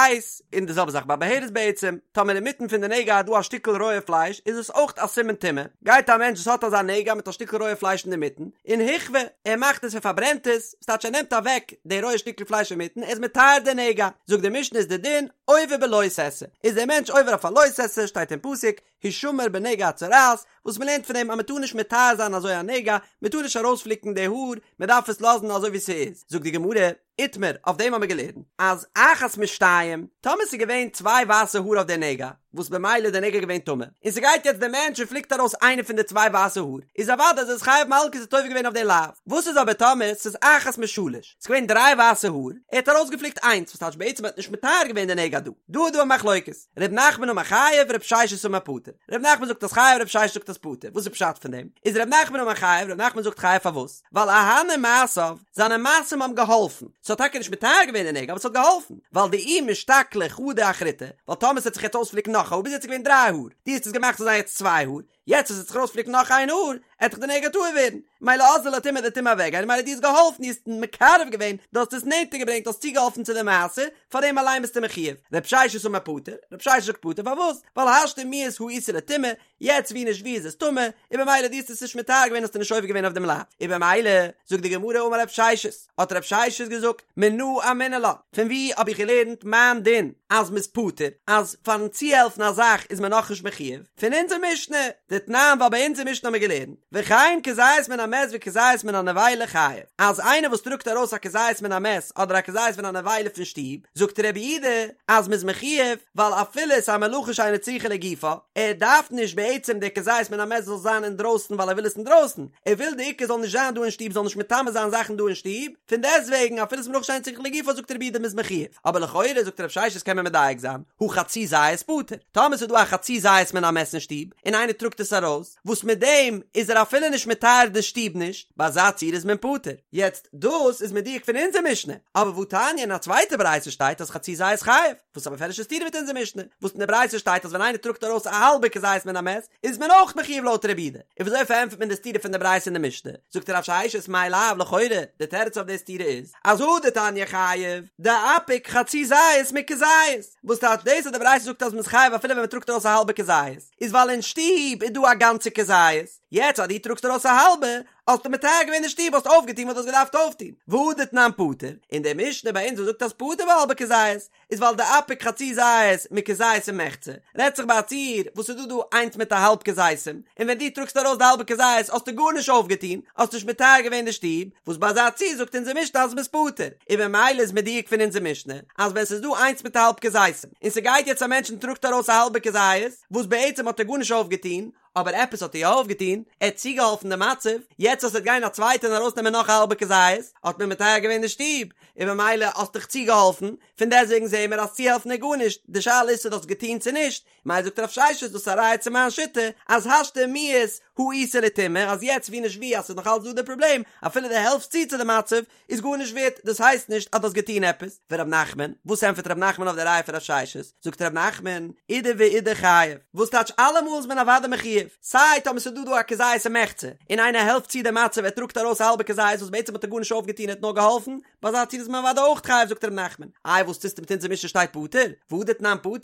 און די זעלבע זאך ביי בהרת בעצם, טאמער אינמיטן פון די נגע איז דא א שטיקל רויע פלייש איז עס אויך א סימן טומאה, גייט א מענטש וואס האט אזא נגע מיט א שטיקל רויע פלייש אינדערמיטן, און הכוה, ער מאכט עס ער פארברענט עס, ס'טייטש ער נעמט אוועק די רויע שטיקל פלייש אינמיטן, ער איז מטהר די נגע, זאגט די משנה איז די דין, עובר בלא תעשה, איז דער מענטש עובר אויף א לא תעשה, שטייט אין פסוק, הישמר בנגע הצרעת, וואס מ'לערנט פון דעם אז מ'טאר נישט מטהר זיין אזוי א נגע, מ'טאר נישט ארויספליקן די האר, מ'דארף עס לאזן אזוי ווי ס'איז, זאגט די גמרא, איתמר, אויף דעם האמיר געלערנט אז אחת משתיים, טאמער ס'איז געווען צוויי ווייסע האר אויף די נגע, וואס במילא איז די נגע געווען טמא, און ס'גייט יעצט דער מענטש און פליקט ארויס איינע פון די צוויי ווייסע האר, איז אוודאי אז ער איז חייב מלקות האט עובר געווען אויף די לאו. וואס איז אבער טאמער ס'איז אחת משלש, ס'איז געווען דריי ווייסע האר, ער האט ארויסגעפליקט איינס, וואס טייטש בעצם ער האט נישט מטהר געווען די נגע דא. דא איז דא א מחלוקת, ר' נחמן אמר חייב, ר' ששת אמר פטור. ר' נחמן זאגט אז חייב, ר' ששת זאגט אז פטור. וואס איז פשט פון דעם? איז ר' נחמן אמר חייב, ר' נחמן זאגט חייב פארוואס? ווייל אהני מעשיו, זיינע מעשים האבן געהאלפן, ס'האט טאקע נישט מטהר געווען די נגע אבער ס'האט געהאלפן, ווייל דאי משתקלא חדא אחריתי, ווייל טאמער ס'וועט זיך יעצט אויספליקן נאך א האר, ביז יעצט איז געווען דריי האר, דו האסט עס געמאכט ס'זאל זיין יעצט צוויי האר, יעצט אז ס'וועט זיך ארויספליקן נאך איין האר, עט דאך די נגע טהור ווערן, מילא אזלא לטומאה די טומאה אוועקגיין, מילא דו האסט געהאלפן, דו האסט מקרב געווען, דו האסט עס נענטער געברענגט, דו האסט צוגעהאלפן צו די מעשה, פאר דעם אליין ביסטו מחיוב. רב ששת אמר פטור, רב ששת זאגט פטור פארוואס? ווייל השתא מיהת הא איתא לטומאה, יעצט ווי נישט ווי איז עס טמא, און במילא דו האסט עס נישט מטהר געווען האסטו נישט עובר געווען אויף דעם לאו, און במילא זאגט די גמרא אמר רב ששת, האט רב ששת געזאגט, מנא אמינא לה, פון ווי האב איך געלערנט מיין דין אז מ'איז פטור, אז פארן צוהעלפן א זאך איז מען נאכנישט מחיוב, פון אונזער משנה, דתניא. דתנן ווייל ביי אונז אין משנה האבן מיר געלערנט, וכן כזית מן המת וכזית מן הנבילה חייב, אז איינער וואס טראגט ארויס א כזית מן המת אדער א כזית מן הנבילה פון שטוב, זאגט רבי יהודה אז מ'איז מחויב, ווייל אפילו ס'איז א מלאכה שאינה צריכה לגופה, ער דארף נישט בעצם די כזית מן המת זאל זיין אינדרויסן ווייל ער וויל עס אינדרויסן, ער וויל די עיקר זאל נישט זיין דא אין שטוב זאל נישט מטמא זיין זאכן דא אין שטוב, פון דעסטוועגן אפילו ס'איז מלאכה שאינה צריכה לגופה זאגט רבי יהודה מ'איז מחויב, אבער לכאורה זאגט רב ששת קען מען מדייק זיין, הא חצי זית פטור, טאמער ס'איז דא א חצי זית מן המת אין שטוב און איינער טראגט עס ארויס, וואס מיט דעם איז ער אפילו נישט מטהר די שטוב נישט, ביי אזא ציור איז מען פטור. יעצט דאס איז מדויק פון אונזער משנה, אבער והתניא אין א צווייטע ברייתא שטייט אז חצי זית חייב, וואס איז א מפורש'ע סתירה מיט אונזער משנה, וואס אין די ברייתא שטייט אז ווען איינער טראגט ארויס א האלבע כזית מן המת איז מען אויך מחויב לויט רבי יהודה, און וויאזוי פארענטפערט מען די סתירה פון די ברייתא און די משנה? זאגט רב ששת מאי לאו לכאורה די תירוץ אויף די סתירה איז אז הא דתניא חייב דאפיק חצי זית מכזית, וואס טייטש דאס אז די ברייתא זאגט אז מען איז חייב אפילו ווען מען טראגט ארויס א האלבע כזית, איז ווייל אין שטוב איז דא א גאנצע כזית, יעצט אז דו טראגסט ארויס א האלבע, האסטו מטהר געווען די שטוב, האסט אויפגעטון וואס דו האסט געדארפט אויפטון, והא דתנן פטור, און די משנה ביי אונז וואס זאגט אז פטור בהאלבע כזית, איז ווייל דאפיק חצי זית מכזית ומחצה, רעדט זיך ביי א ציור וואס איז דא דא איינס מיט א האלב כזיתים, און ווען דו טראגסט ארויס די האלבע כזית האסטו גארנישט אויפגעטון, האסט נישט מטהר געווען די שטוב, וואס ביי אזא ציור זאגט אונזער משנה אז מ'איז פטור, און במילא איז מדויק פון אונזער משנה אז ווען ס'איז דא איינס מיט א האלב כזיתים, און ס'גייט יעצט א מענטש און טראגט ארויס א האלבע כזית, וואס בעצם האט ער גארנישט אויפגעטון, אבער עפעס האט ער יא אויפגעטון, ער האט צוגעהאלפן די מצב, יעצט אז ס'וועט גיין א צווייטער און ארויסנעמען נאך א האלבע כזית, האט מען מטהר געווען די שטוב, און במילא האסט דאך צוגעהאלפן, פון דעסטוועגן זעהן מיר אז צוהעלפן איז גארנישט, די שאלה איז צו דו האסט געטון צו נישט, מילא זאגט רב ששת דאס איז א ראיה צו מיין שיטה, אז השתא מיהת הא איתא לטומאה, אז יעצט ווי נישט ווי אז ס'איז נאך אלץ דא די פראבלעם, אפילו דו העלפסט צו צו די מצב, איז גארנישט ווערט, דאס הייסט נישט אז דו האסט געטון עפעס. ורב נחמן, וואס ענטפערט רב נחמן אויף די ראיה פון רב ששת? זאגט רב נחמן, אידי ואידי חייב, וואס טייטש אלעמאל איז מען אוודאי מחויב, סיי טאמער ס'איז דא דא א כזית ומחצה, און איינער העלפט צו די מצב ער טראגט ארויס א האלבע כזית וואס בעצם האט ער גארנישט אויפגעטון ער האט נאר געהאלפן, ביי אזא ציור איז מען אוודאי אויך חייב זאגט רב נחמן, איי וואס טוסטו מיט אונזער משנה שטייט פטור? והא דתנן פטור?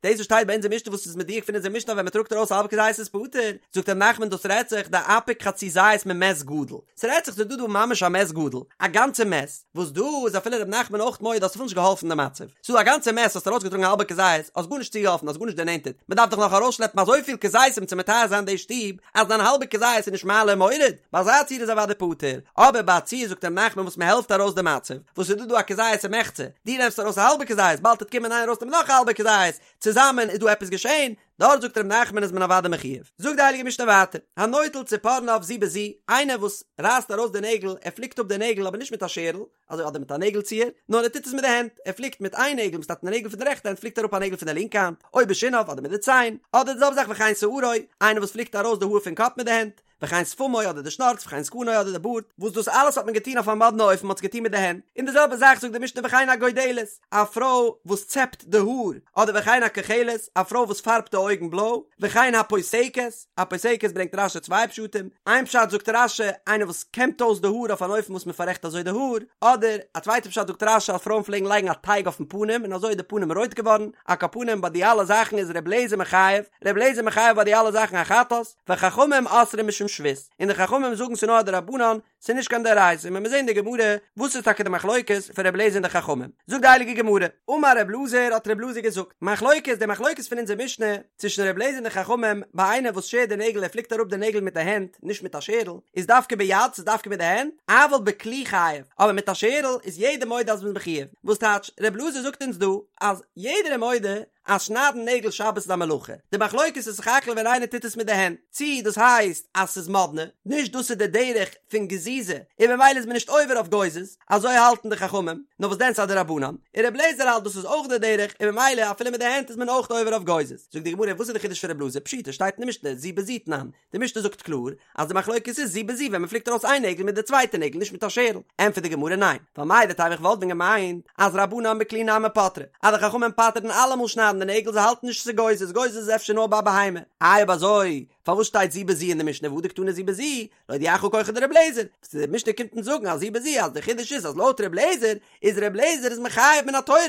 דאס וואס שטייט ביי אונזער משנה וואס איז מדויק פון אונזער משנה אז ווען מען טראגט ארויס א האלבע כזית איז פטור, זאגט רב נחמן דאס רעדט זיך דאפיק חצי זית ממת גדול, ס'רעדט זיך ס'איז דא דא ממש א מת גדול, א גאנצע מת, וואס דא איז אפילו רב נחמן אויך מודה האסט אפילו נישט געהאלפן די מצב, ס'איז דא א גאנצע מת האסט ארויסגעטראגן א האלבע כזית, האסט גארנישט צוגעהאלפן האסט גארנישט דערנענטערט, מ'דארף דאך נאך ארויסשלעפן אזויפיל כזיתים צו מטהר זיין די שטוב, אז דיין האלבע כזית איז נישט מעלה ומוריד, ביי אזא ציור איז אוודאי פטור, אבער ביי א ציור זאגט רב נחמן וואס מ'העלפט ארויס די מצב, וואס איז דא דא א כזית ומחצה, דו נעמסט ארויס א האלבע כזית, באלד וועט קומען איינער ארויסנעמען נאך א האלבע כזית, צוזאמען איז דא עפעס געשען, דארט זאגט ר' נחמן איז מען אוודאי מחויב. זאגט די הייליגע משנה ווייטער, הנוטל ציפורניו זו בזו, איינער וואס רייסט ארויס די נעגל, ער פליקט אפ די נעגל אבער נישט מיט א שערל, אזוי אדער מיט א נעגל ציער, נאר ער טוט עס מיט די הענט, ער פליקט מיט איין נעגל, מסתמא די נעגל פון די רעכטע הענט פליקט אראפ א נעגל פון די לינקע האנט, או בשיניו אדער מיט די ציין, אדער די זעלבע זאך וכן שערו, איינער וואס פליקט ארויס די האר פון קאפ מיט די הענט, וכן שפמו אדער די שנארץ וכן זקנו אדער די בארד, וואס דאס אלעס האט מען געטון אויף א מאדנע אופן, מען האט עס געטון מיט די הענט, און די זעלבע זאך זאגט די משנה וכן הגודלת, א פרוי וואס צעפט די האר, אדער וכן הכוחלת, א פרוי וואס פארבט די אויגן בלוי, וכן הפוסקת, א פוסקת ברענגט רש"י צוויי פשטים, איין פשט זאגט רש"י, איינער וואס קעמט אויס די האר אויף אן אופן וואס מען פאררעכט אזוי די האר, אדער א צווייטע פשט זאגט רש"י אז פרויען פלעגן לייגן א טייג אויפן פנים און אזוי איז די פנים רויט געווארן, על כל פנים ביי די אלע זאכן איז ר' אליעזר מחייב, ר' אליעזר מחייב ביי די אלע זאכן א חטאת, וחכמים אוסרים משום שבות, און די חכמים זאגן ס'נאר א דרבנן, ס'איז נישט קיין דאורייתא, און מ'וועט זען אין די גמרא וואס איז טאקע די מחלוקת פון ר' אליעזר און די חכמים. זאגט די הייליגע גמרא, אמר ר' אלעזר האט ר' אלעזר געזאגט, מחלוקת, די מחלוקת פון אונזער משנה צווישן ר' אליעזר און די חכמים, ביי איינער וואס שערט די נעגל ער פליקט אראפ די נעגל מיט די הענט, נישט מיט א שערל, איז דווקא ביד, ס'איז דווקא מיט די הענט, אבל בכלי חייב, אבער מיט א שערל איז יעדער מודה אז מ'איז מחויב, וואס טייטש, ר' אלעזר זאגט אונז דא אז יעדער איז מודה אז שניידן נעגל שבת איז א מלאכה, די מחלוקת איז סך הכל ווען איינער טוט עס מיט די הענט, צי דאס הייסט אז ס'איז מאדנע, נישט דאס איז די דרך פון גזיזה, און ממילא איז מען נישט עובר אויף גוזז, אזוי האלטן די חכמים, נאר וואס דען ס'איז א דרבנן, און ר' לעזער האלט דאס איז אויך די דרך, און ממילא אפילו מיט די הענט איז מען אויך עובר אויף גוזז. זאגט די גמרא וואס איז די חידוש פון ר' אלעזר, פשיטא שטייט אין די משנה זו בזו תנן, די משנה זאגט קלאר אז די מחלוקת איז זו בזו ווען מען פליקט ארויס איין נעגל מיט די צווייטע נעגל נישט מיט א שערל, ענטפערט די גמרא ניין, ווייל מהו דתימא איך וואלט ווען געמיינט אז רבנן בכלי נמי פטרי, אז די חכמים פטר'ן אלעמאל שניידן די נעגל זיי האלטן נישט ס'איז גוזז, גוזז איז אפשר נאר ביי בהמה, איי אויב אזוי פארוואס שטייט זו בזו אין די משנה והא דקתני זו בזו, להודיעך כחו דר' אליעזר, וואס די משנה קומט אונז זאגן אז זו בזו אז די חידוש איז אז לויט ר' אליעזר איז ר' אליעזר איז מחייב מן התורה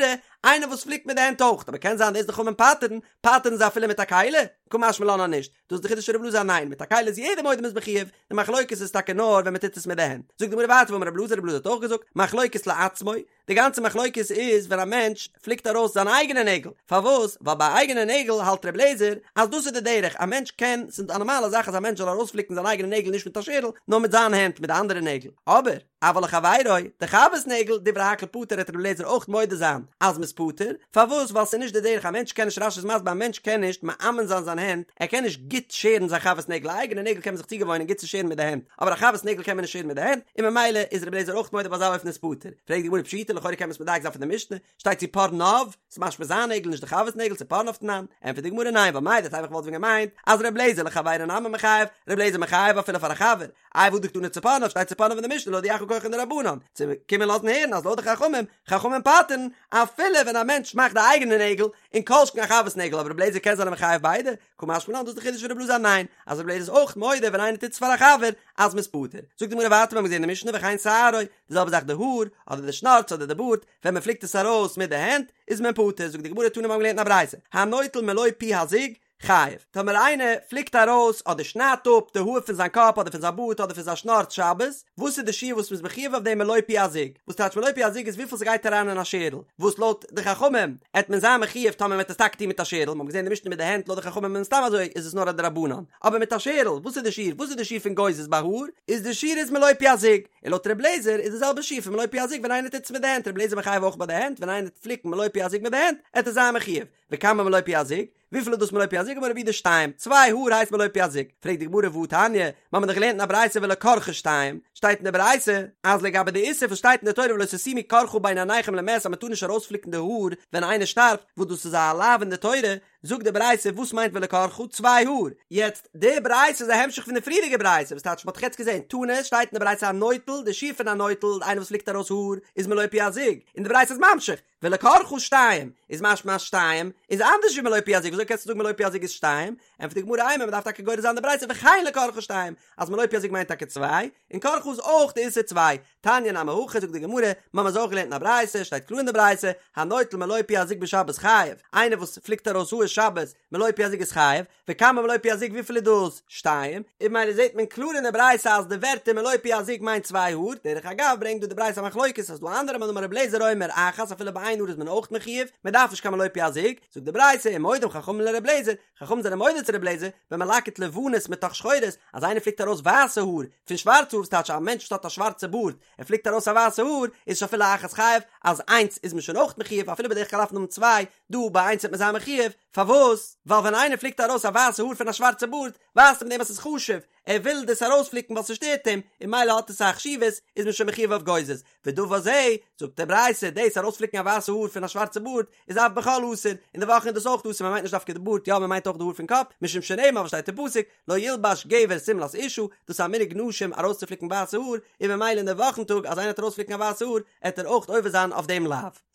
איינער וואס פליקט מיט די הענט אויך, אבער קען זיין דאס די חכמים פטר'ן, פטר'ן זיי אפילו מיט א כלי? קא משמע לן אז נישט. דאס איז די חידוש פון רב אלעזר אז ניין, מיט א כלי איז יעדער מודה מ'איז מחויב, די מחלוקת איז טאקע נאר ווען מ'טוט עס מיט די הענט. זאגט די גמרא ווייטער ואמר רב אלעזר, רב אלעזר האט אויך געזאגט, מחלוקת לעצמו, די גאנצע מחלוקת איז ווען א מענטש פליקט ארויס זיינע אייגענע נעגל, פארוואס? ווייל ביי אייגענע נעגל האלט רב אלעזר אז דאס איז די דרך, א מענטש קען, ס'איז ס'איז א נארמאלע זאך אז א מענטש זאל ארויספליקן זיין אייגענע נעגל נישט מיט א שערל, נאר מיט זיין הענט מיט די אנדערע נעגל. אבער, אבל לחבירו, די חבר'ס נעגל, דברי הכל פטור העט רבי אליעזר אויך מודה זיין אז מ'איז פטור, פארוואס? ווייל ס'איז נישט די דרך, א מענטש קען נישט רש"י איז מסביר א מענטש קען נישט מאמן זיין זיין הענט, ער קען נישט גוט שערן זיין חבר'ס נעגל, א אייגענע נעגל קען מען זיך צוגעוואוינען גוט צו שערן מיט די הענט, אבער א חבר'ס נעגל קען מען נישט שערן מיט די הענט, און ממילא איז רבי אליעזר אויך מודה ביי אזא אופן איז פטור. פרעגט די גמרא פשיטא לכאורה קען מען עס מדייק זיין פון די משנה, שטייט צפרניו, ס'איז משמע זיין נעגל נישט די חבר'ס נעגל צפרניו תנן, ענטפערט די גמרא ניין ווייל מהו דתימא כ'וואלט ווען געמיינט אז ר' אליעזר לחבירו נמי מחייב, ר' אליעזר מחייב אפילו פאר א חבר, איי והא דקתני צפרניו שטייט צפרניו אין די משנה להודיעך כחן דרבנן, צו קומען לאזן הערן אז לויט די חכמים, חכמים פטר'ן אפילו ווען א מענטש מאכט די אייגענע נעגל, און כל שכן א חבר'ס נעגל אבער ר' אליעזר קען זיין מחייב ביידע, קא משמע לן דאס איז די חידוש פון ר' אלעזר ניין אז ר' אליעזר איז אויך מודה ווען איינער טוט עס פאר א חבר אז מ'איז פטור, זאגט די גמרא ווייטער מ'האט געזען אין די משנה וכן שערו, די זעלבע זאך די האר, אדער די שנארץ אדער די בארד, ווען מען פליקט עס ארויס מיט די הענט איז מען פטור, זאגט די גמרא תנא מיר האבן געלערנט אין א ברייתא, הנוטל מלא פי הזוג, חייב, טאמער איינער פליקט ארויס אדער שניידט אפ די האר פון זיין קאפ אדער פון זיין בארד אדער פון זיין שנארץ שבת, וואס איז די שיעור וואס מ'איז מחויב אויף דעם מלא פי הזוג? וואס טייטש מלא פי הזוג איז וויפיל ס'גייט אריין אין א שערל, וואס לויט די חכמים עט מען זיין מחויב טאמער מ'עט עס טאקע טון מיט א שערל, מ'האט געזען די משנה מיט די הענט לויט די חכמים מן הסתם אזוי איז עס נאר א דרבנן, אבער מיט א שערל, וואס איז די שיעור? וואס איז די שיעור פון גוזז ביי האר? איז די שיעור איז מלא פי הזוג, און לויט ר' לעזער איז די זעלבע שיעור פון מלא פי הזוג ווען איינער טוט עס מיט די הענט, ר' לעזער מחייב אויך ביי די הענט, ווען איינער טוט פליקן מלא פי הזוג מיט די הענט, עט ער זיין מחויב, וכמה מלא פי הזוג? וויפיל איז דאס מלא פי הזוג? אמר רב יהודה שתיים, צוויי האר הייסט מלא פי הזוג. פרעגט די גמרא והתניא, מיר האבן דאך געלערנט אין א ברייתא ולקרחה שתיים, שטייט אין די ברייתא אז לגבי די איסור וואס שטייט אין די תורה ולא תשימו קרחה בין עיניכם למת אז מען טאר נישט ארויספליקן די האר ווען איינער שטארבט, וואס דאס איז א לאו אין די תורה, זאגט די ברייתא וואס מיינט ולקרחה? צוויי האר. יעצט, די ברייתא איז א המשך פון די פריערדיגע ברייתא, וואס טייטש מען האט דאך יעצט געזען, תנא, שטייט אין די ברייתא הנוטל, די שיעור פון א נוטל, איינער וואס פליקט ארויס האר, איז מלא פי הזוג, און די ברייתא איז ממשיך, ולקרחה שתיים, איז משמע אז שתיים איז אנדערש ווי מלא פי הזוג, וויאזוי קענסטו זאגן מלא פי הזוג איז שתיים? ענטפערט די גמרא אימא, מ'דארף טאקע גורס זיין די ברייתא וכן לקרחה שתיים, אז מלא פי הזוג מיינט טאקע צוויי, און קרחה איז אויך די איסור צוויי. תניא נמי הכי זאגט די גמרא, מ'האמיר אזוי אויך געלערנט אין א ברייתא, שטייט קלאר אין די ברייתא, הנוטל מלא פי הזוג בשבת חייב, איינער וואס פליקט ארויס האר שבת מלא פי הזוג איז חייב, וכמה מלא פי הזוג וויפיל איז דאס? שתיים, און ממילא זעט מען קלאר אין די ברייתא אז די ווערטער מלא פי הזוג מיינט צוויי האר, דרך אגב ברענגט דא די ברייתא א מחלוקת אז ס'דא אנדערע מאן דאמר רבי אליעזר אומר אחת אפילו ביי איין האר איז מען אויך מחויב, מען דארף נישט קיין מלא פי הזוג, זאגט די ברייתא ומודים חכמים לרבי אליעזר, חכמים זענען מודה צו רבי אליעזר, במלקט לבנות מתוך שחורות, אז איינער פליקט ארויס ווייסע האר פון שווארצע האר וואס טייטש א מענטש וואס האט א שווארצע בארד ער פליקט ארויס א ווייסע האר איז שאפילו אחת חייב אז איינס איז מען שוין אויך מחויב אפילו בדרך כלל דארף מען האבן צוויי, דא ביי איינס וועט מען זיין מחויב, פארוואס? ווייל ווען איינער פליקט ארויס א ווייסע האר פון א שווארצע בארד, ווייזט ער מיט דעם אז ס'איז חשוב, ער וויל דאס ארויספליקן ווייל ס'שטערט אים, און ממילא האט עס א חשיבות, איז מען שוין מחויב אויף גוזז. ודבר זה, זאגט די ברייתא, דאס ארויספליקן א ווייסע האר פון א שווארצע בארד, איז אף בחול אסור, אין די וואכן איז דאס אויך אסור, מ'מיינט נישט דווקא די בארד, יא מ'מיינט אויך די האר פון קאפ, משום שנאמר וואס שטייט אין פסוק, לא ילבש גבר שמלת אשה, דאס איז א מנהג נשים ארויסצופליקן ווייסע האר, און ממילא אין די וואכן טאג אז איינער וועט ארויספליקן א ווייסע האר, עט ער אויך עובר זיין אויף דעם לאו.